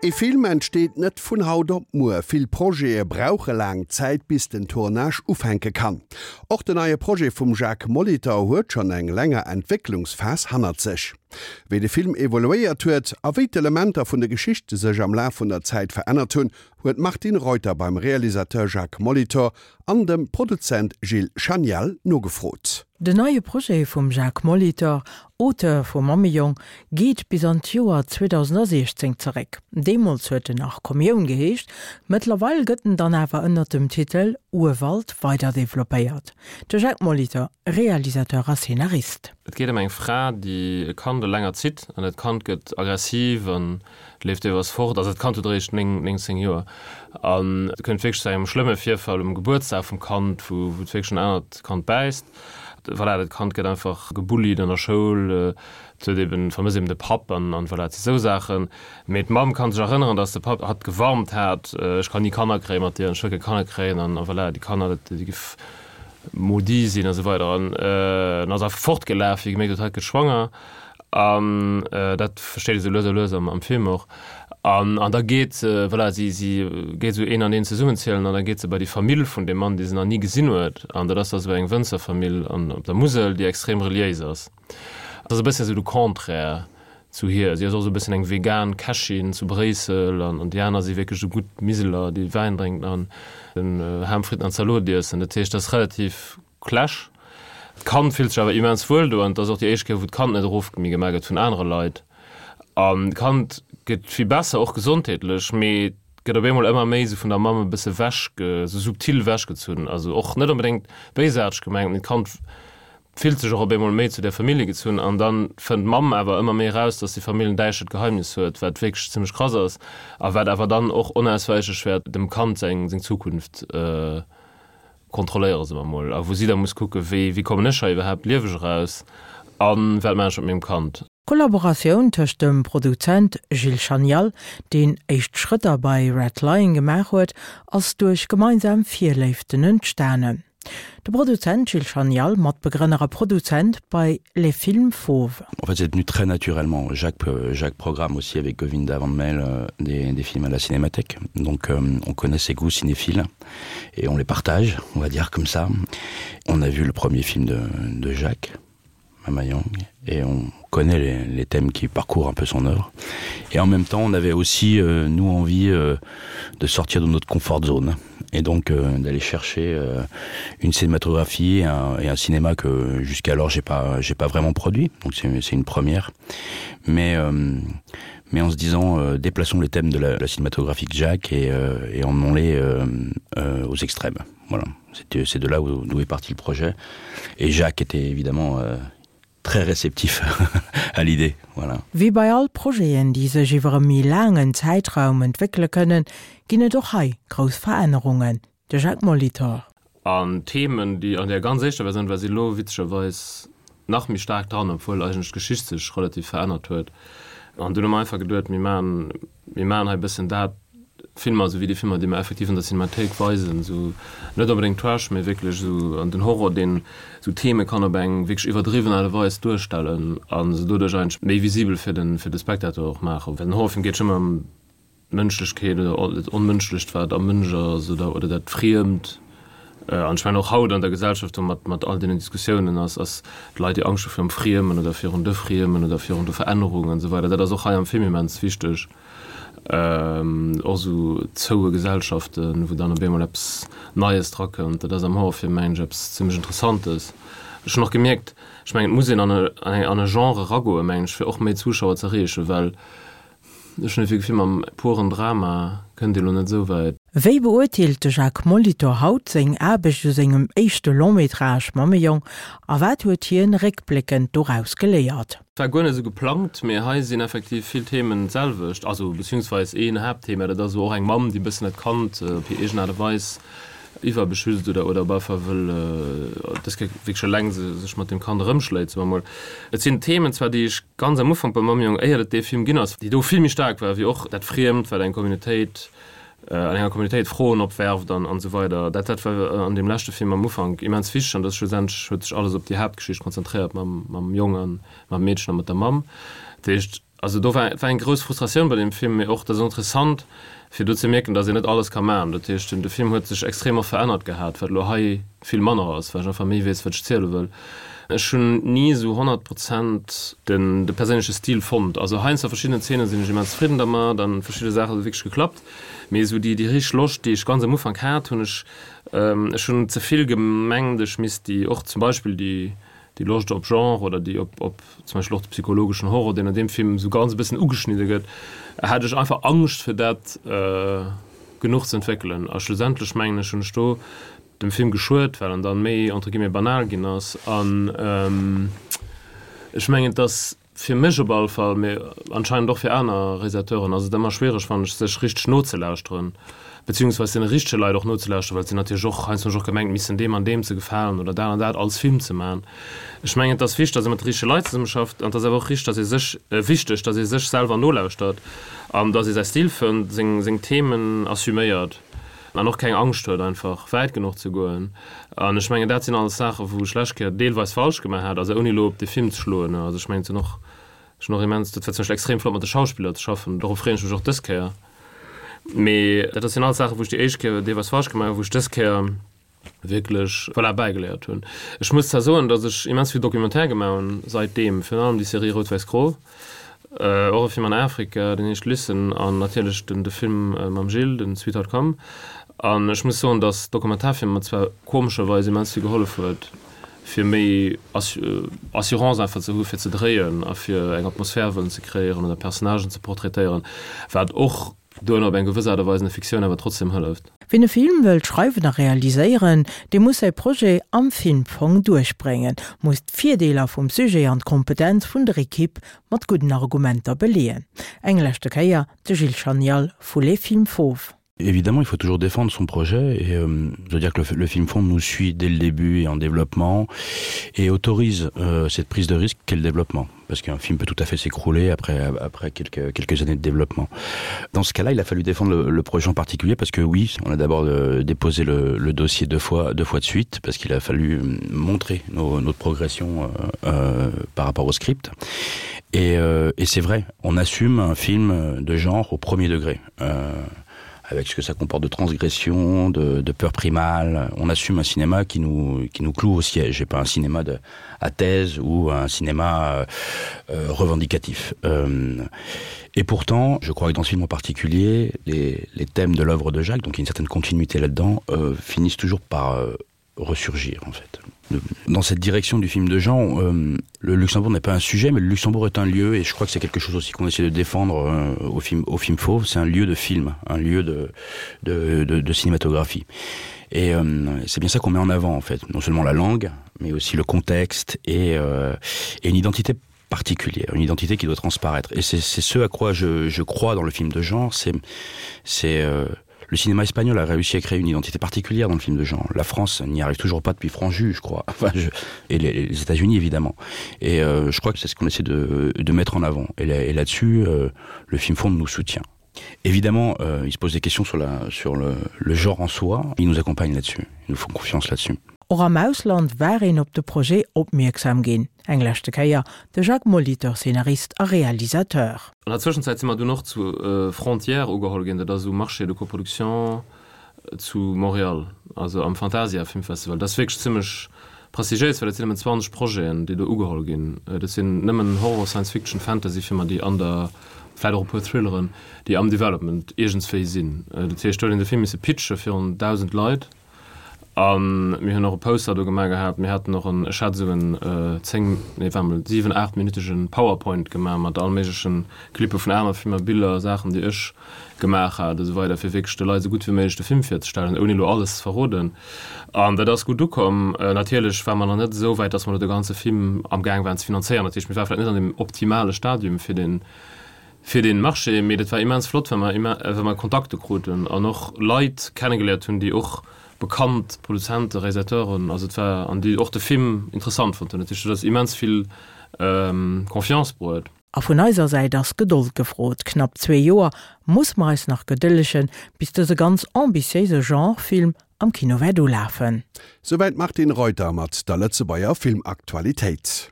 Ee Film entsteet net vun haut op muer. Vill Projete brauche laang Zäit, bis den Tournage ufänke kann. Och den neie Projet vum Jacques Molitor huet schonn eng länger Entwécklungsphas hannert sech. Wéi de Film evoluéiert huet a wéi d'Elementer vun der Geschicht sech am Laf vun der Zäit verännert hunn, huet d'Martine Reuter beim Realisateur Jacques Molitor an dem Produzent Gilles Chanial nogefrot. Den neie Projet vum Jacques Molitor, Auteur vu Mammejong, geet bis an d'Joer 2016 zeréck. Deemools huet en nach Kommioun geheescht, mëttlerweil gëtt en dann awer ënnert dem Titel Urwald weiderdeveloppéiert. De Jacques Molitor, Realisateur a Szenarist. Et geet ëm eng Fra, déi e Kand eleng erzitt an dat Kand gëtt aggressiv an leeft deelweis fort. Also dat Kand huet eréischt 9, 9, 10 Joer an et kënnt wierklech zu engem schlëmme Virfall um Gebuertsdag vum Kand, wou wou et wierklech en anert Kand bäisst. Voilà, dat Kand gëtt einfach gebullied an der Schoul, et huet eben, vermësst eben de Papp an an voilà, et si sou Saachen. Mee d'Mamm kann sech erënneren, dass de Papp hatt gewarnt hat, ech kann ni Kanner kréien mat dir an ech wëll keng Kanner kréien an a voilà, déi Kanner, dat déi giff maudit sinn a sou weider an en ass einfach fortgelaf, wéi e gemierkt huet, hatt gëtt schwanger. An dat versteet ee sou lues a lues am Film och. An an da geet se, voilà, si si geet esou een an een zesummenzielen an da geet se bei déi Famill vun deem Mann, dee se nach ni gesinn huet. An dat ass da sou eng Wënzerfamill an op der Musel, déi extrem reliéis ass. Dat ass e bësschen esou de Contraire zu hir. Si ass och esou e bësschen eng vegan Kächin zu Bréissel an an déi aner si wierklech esou gutt Miseler, déi Wäin drénken an den Ham, Fritten an Zalot iessen. Dat heescht, dat ass relativ Clash. D'Kand fillt sech awer immens wuel do an et ass och déi éischt Kéier wou d'Kand net erof méi gemaach gëtt vun anere Leit. An d'Kand gëtt vill besser, och gesondheetlech, mee gëtt op eemol ëmmer méi esou vun der Mamm e bësse wech, esou subtil wechgezunn. Also och net onbedéngt béisaarteg gemengt, mee d'Kand fillt sech och op eemol méi zu där Famillje gezunn. An da fënnt d'Mamm awer ëmmer méi eraus, dass déi Famill en däischtert Geheimnis huet, wat wierklech zimmlech krass ass a wat awer dann och onauswäichlech wäert dem Kand seng Zukunft kontrolléiere se mer mol, a wou si da muss kucken, wéi wéi kommen ech hei iwwerhaapt lieweg eraus a wat maachen ech mat mengem Kand. D'Kollaboratioun tëscht dem Produzent Gilles Chanial, deen éischt Schrëtter bei Red Lion gemaach huet, ass duerch gemeinsam Virléiften entstanen. De Produzent Gilles Chanial, Matbegrënner a Produzent bei Les Films Fauves. En fait, c'est venu très naturellement. Jacques, euh, Jacques programme aussi avec Govinda Van Mel euh, des, des films à la Cinémathèque. Donc euh, on connaît ses goûts cinéphiles et on les partage, on va dire comme ça. On a vu le premier film de, de Jacques, Mama Yang, et on connaît les, les thèmes qui parcourent un peu son œuvre. Et en même temps, on avait aussi euh, nous envie euh, de sortir de notre confort zone et donc euh, d'aller chercher euh, une cinématographie et un, et un cinéma que jusqu'alors j'ai pas j'ai pas vraiment produit donc c'est une première mais euh, mais en se disant euh, déplaçons les thèmes de la, la cinématographie de Jacques et, euh, et emmenons-les euh, euh, aux extrêmes voilà c'est de là où d'où est parti le projet et Jacques était évidemment euh, très réceptif à l'idée voilà. Wéi bei all Projeten, déi sech iwwer e méi laangen Zäitraum entwéckele kënnen, ginn et och hei grouss Verännerungen. De Jacques Molitor. An d'Themen, déi an där ganz éischter Versioun war, si lo witzegerweis nach méi staark dran, obwuel eigentlech d'Geschicht sech relativ verännert huet. An dunn hu mer einfach geduet, mir maachen Mir maachen hei e bëssen dat, Filmer, esou wéi déi Filmer, déi mer effektiv an der Cinemathéik weisen, esou net onbedéngt Trash, mee wierklech esou an den Horror, deen esou Theme kann op eng wierklech iwwerdriwwen Aart a Weis duerstellen a se doduerch eigentlech méi visibel fir de fir de Spectateur och maachen. Well den Horrorfilm geet jo ëmmer ëm d'Mënschlechkeet oder dat Onmënschlecht, wat am Mënsch ass oder oder dat Friemt. An ech mengen och haut an der Gesellschaft do mat mat all deenen Diskussiounen ass ass d'Leit déi Angscht hu virum Friemen oder virun de Friemen oder virun de Verännerungen an esou weider, dat ass och hei am Film immens wichteg. Och esou zoue Gesellschaften, wou dann op eemol eppes Neies drakënnt, dat ass am Horrorfilm mengen ech eppes zimmlech Interessantes. Ech hunn och gemierkt, ech mengen et muss een an e an e Genre eragoen, mengen ech, fir och méi Zuschauer ze erreechen, well Ech hunn dofir Gefill, mam puren Drama kënnt Dir elo net esou wäit. Wéi beurteelt de Jacques Molitor haut seng Aarbecht u sengem éischte Long-métrage Mammejong a wat huet hien réckbléckend doraus geléiert? War guer net esou geplangt, mee hei sinn effektiv vill Themen d'selwecht, also beziehungsweis een Haaptthema, dat ass esou och eng Mamm, déi e bëssen dat Kand op hir eegen Aart a Weis iwwerbeschützt oder oder op alle Fall wëll dës Kéier wierklech eleng sech mat deem Kand erëmschléit, soe mer mol. Et sinn Themen zwar, déi ech ganz am Ufank bei Mammejong, éiert et dee Film ginn ass, déi do vill méi staark war wéi och dat Friemt, wat eng Communautéit, an enger Communautéit Froen opwerft an an esou weider. Dat dat war an deem leschte Film am Ufank immens wichteg an dat ass schlussendlech huet sech alles op déi Haaptgeschicht konzentréiert mam mam Jong an mam Meedchen a mat der Mamm. Dat heescht. Also do war war eng grouss Frustratioun bei deem Film, mee och dat ass interessant fir do ze mierken, datt een net alles ka maachen. Dat heescht, de Film huet sech extrem och verännert gehat, wat elo hei vill manner ass, well ech einfach méi weess, wat ech ziele wëll. Ech hunn ni esou 100 Prozent den de perséinleche Stil fonnt. Also heiansdo a verschiddenen Zeenen sinn ech immens zefridden dermat an verschidde Saache hu wierklech geklappt, mee esou déi déi richteg Loscht, déi ech ganz am Ufank hat, hunn ech ech hunn ze vill gemengt, ech misst déi och zum Beispill déi déi Loscht op Genre oder déi op op zum Beispill och de psychologeschen Horror, deen an deem Film esou ganz e bëssen ugeschnidde gëtt, hat ech einfach Angscht fir dat genuch ze entwéckelen. A schlussendlech mengen ech hunn ech do dem Film geschuet, well en dann méi entre guillemets banal ginn ass. An ech mengen, et ass fir mech op alle Fall, mee anscheinend och fir aner Realisateuren, ass et ëmmer schwiereg, fannen ech, sech richteg nozelauschteren, beziehungsweis deene richtege Leit och nozelauschteren, well et sinn natierlech och heiansdo hunn ech och gemengt, missen deem an deem ze gefalen oder dat an dat als Film ze maachen. Ech mengen, et ass wichteg, datt ee mat de richtege Leit zesummeschafft an et ass awer och richteg, datt ee sech, wichteg, datt ee sech selwer nolauschtert an datt ee säi Stil fënnt, seng, seng Themen assuméiert an och keng Angscht huet, einfach wäit genuch ze goen. An ech mengen, dat sinn alles Saachen, wou ech lescht Kéier deelweis falsch gemaach hat, also ouni elo op de Film ze schloen. Also ech mengen, et sinn och, ech hunn och immens, dat war zum Beispill extrem flott mat de Schauspiller ze schaffen, dorop freeën ech mech och dës Kéier. Mee dat sinn alles Saachen, wou ech déi éischt Kéier deelweis falsch gemaach hunn, wou ech dës Kéier wierklech, voilà, bäigeléiert hunn. Ech muss zwar soen, datt ech immens vill Documentaire gemaach hunn saitdeem, virun allem déi Serie Rout-Wäiss-Gro, och e Film an Afrika, deen heescht Listen, an natierlech den de Film mam Gilles, den Sweetheart Come. An ech muss soen, datt Dokumentarfilm mer zwar komescherweis immens vill gehollef huet, fir méi Assurance einfach ze hu fir ze dréien a fir eng Atmosphär wëllen ze kreéieren oder Personnagen ze portraitéieren, wat och duerno op eng gewëss Aart a Weis an der Fiktioun awer trotzdem hëlleft. Wien e Film wëllt schreiwen a realiséieren, dee muss säi Projet am Filmfong duerchbréngen, muss d'Virdeeler vum Sujet an d'Kompetenz vun der Ekipp mat gudden Argumenter beleeën. Eng leschte Kéier de Gilles Chanial vu Les Films Fauves. Évidemment, il faut toujours défendre son projet et euh, je veux dire que le, le film fond nous suit dès le début et en développement et autorise euh, cette prise de risque qu'est le développement parce qu'un film peut tout à fait s'écrouler après, après quelques, quelques années de développement. Dans ce cas-là, il a fallu défendre le, le projet en particulier parce que oui, on a d'abord euh, déposé le, le dossier deux fois, deux fois de suite parce qu'il a fallu euh, montrer nos, notre progression euh, euh, par rapport au script. Et, euh, et c'est vrai, on assume un film de genre au premier degré. Euh, avec ce que ça comporte de transgression, de, de peur primale. On assume un cinéma qui nous, qui nous cloue au siège et pas un cinéma de, à thèse ou un cinéma euh, euh, revendicatif. Euh, et pourtant, je crois que dans ce film en particulier, les, les thèmes de l'œuvre de Jacques, donc il y a une certaine continuité là-dedans, euh, finissent toujours par euh, ressurgir en fait. Dans cette direction du film de Jean, euh, le Luxembourg n'est pas un sujet, mais le Luxembourg est un lieu et je crois que c'est quelque chose aussi qu'on essaie de défendre euh, au film au film fauve, c'est un lieu de film, un lieu de, de, de, de cinématographie. Et euh, c'est bien ça qu'on met en avant en fait, non seulement la langue, mais aussi le contexte et, euh, et une identité particulière, une identité qui doit transparaître. Et c'est ce à quoi je, je crois dans le film de genre, c'est euh, le cinéma espagnol a réussi à créer une identité particulière dans le film de genre. La France n'y arrive toujours pas depuis Franju, je crois. Enfin, je, et les, les États-Unis évidemment. Et euh, je crois que c'est ce qu'on essaie de, de mettre en avant. Et là-dessus, là euh, le film fond nous soutient. Évidemment, euh, il se pose des questions sur, la, sur le, le genre en soi. Il nous accompagne là-dessus. Ils nous font confiance là-dessus. Och am Ausland war een op de Projet opmierksam ginn. Eng leschte Kéier de Jacques Molitor, Szenarist a Realisateur. An der Zwëschenzäit si mer dunn och zu Frontières ugeholl ginn, dat ass esou Marché de coproduction zu Montréal, also am Fantasia Filmfestival. Dat ass wierklech zimmlech prestigiéis, well dat sinn nëmmen 20 Projeten, déi do ugeholl ginn. Dat sinn nëmmen Horror, Science Fiction, Fantasy Filmer, déi an der, vläicht och e puer Thrilleren, déi am Development iergendswéi sinn. Dat heescht, do huet een de Film misse pitche virun 1.000 Leit. A mir hunn och e Poster do gemaach gehat. Mir haten och en, ech hat esou en 10, nee war mol 7, 8 minütege Powerpoint gemaach mat all méigleche Clippe vun aner Filmer, Biller, Saachen déi ech gemaach hat a sou weider, fir wierklech de Leit esou gutt wéi méiglech de Film virzestellen, ouni elo alles ze verroden. An dat ass gutt ukomm. Natierlech ware mer nach net esou wäit, datt mer elo de ganze Film amgaang waren ze finanzéieren. Dat heescht, mir ware vläicht net an deem optimale Stadium fir deen fir deen Marché, mee dat war immens flott, well mer well mer Kontakte kruten an och Leit kennegeléiert hunn, déi och bekannt Produzenten, Realisateuren, also et war an déi och de Film interessant fonnt hunn. Dat heescht, dat ass immens vill Confiance bruet. A vun eiser Säit ass Gedold gefrot. Knapp zwee Joer muss mer eis nach gedëllegen, bis dëse ganz ambitiéise Genre-Film am Kino wäert ulafen. Souwäit d'Martine Reuter mat der Lëtzebuerger Filmaktualitéit.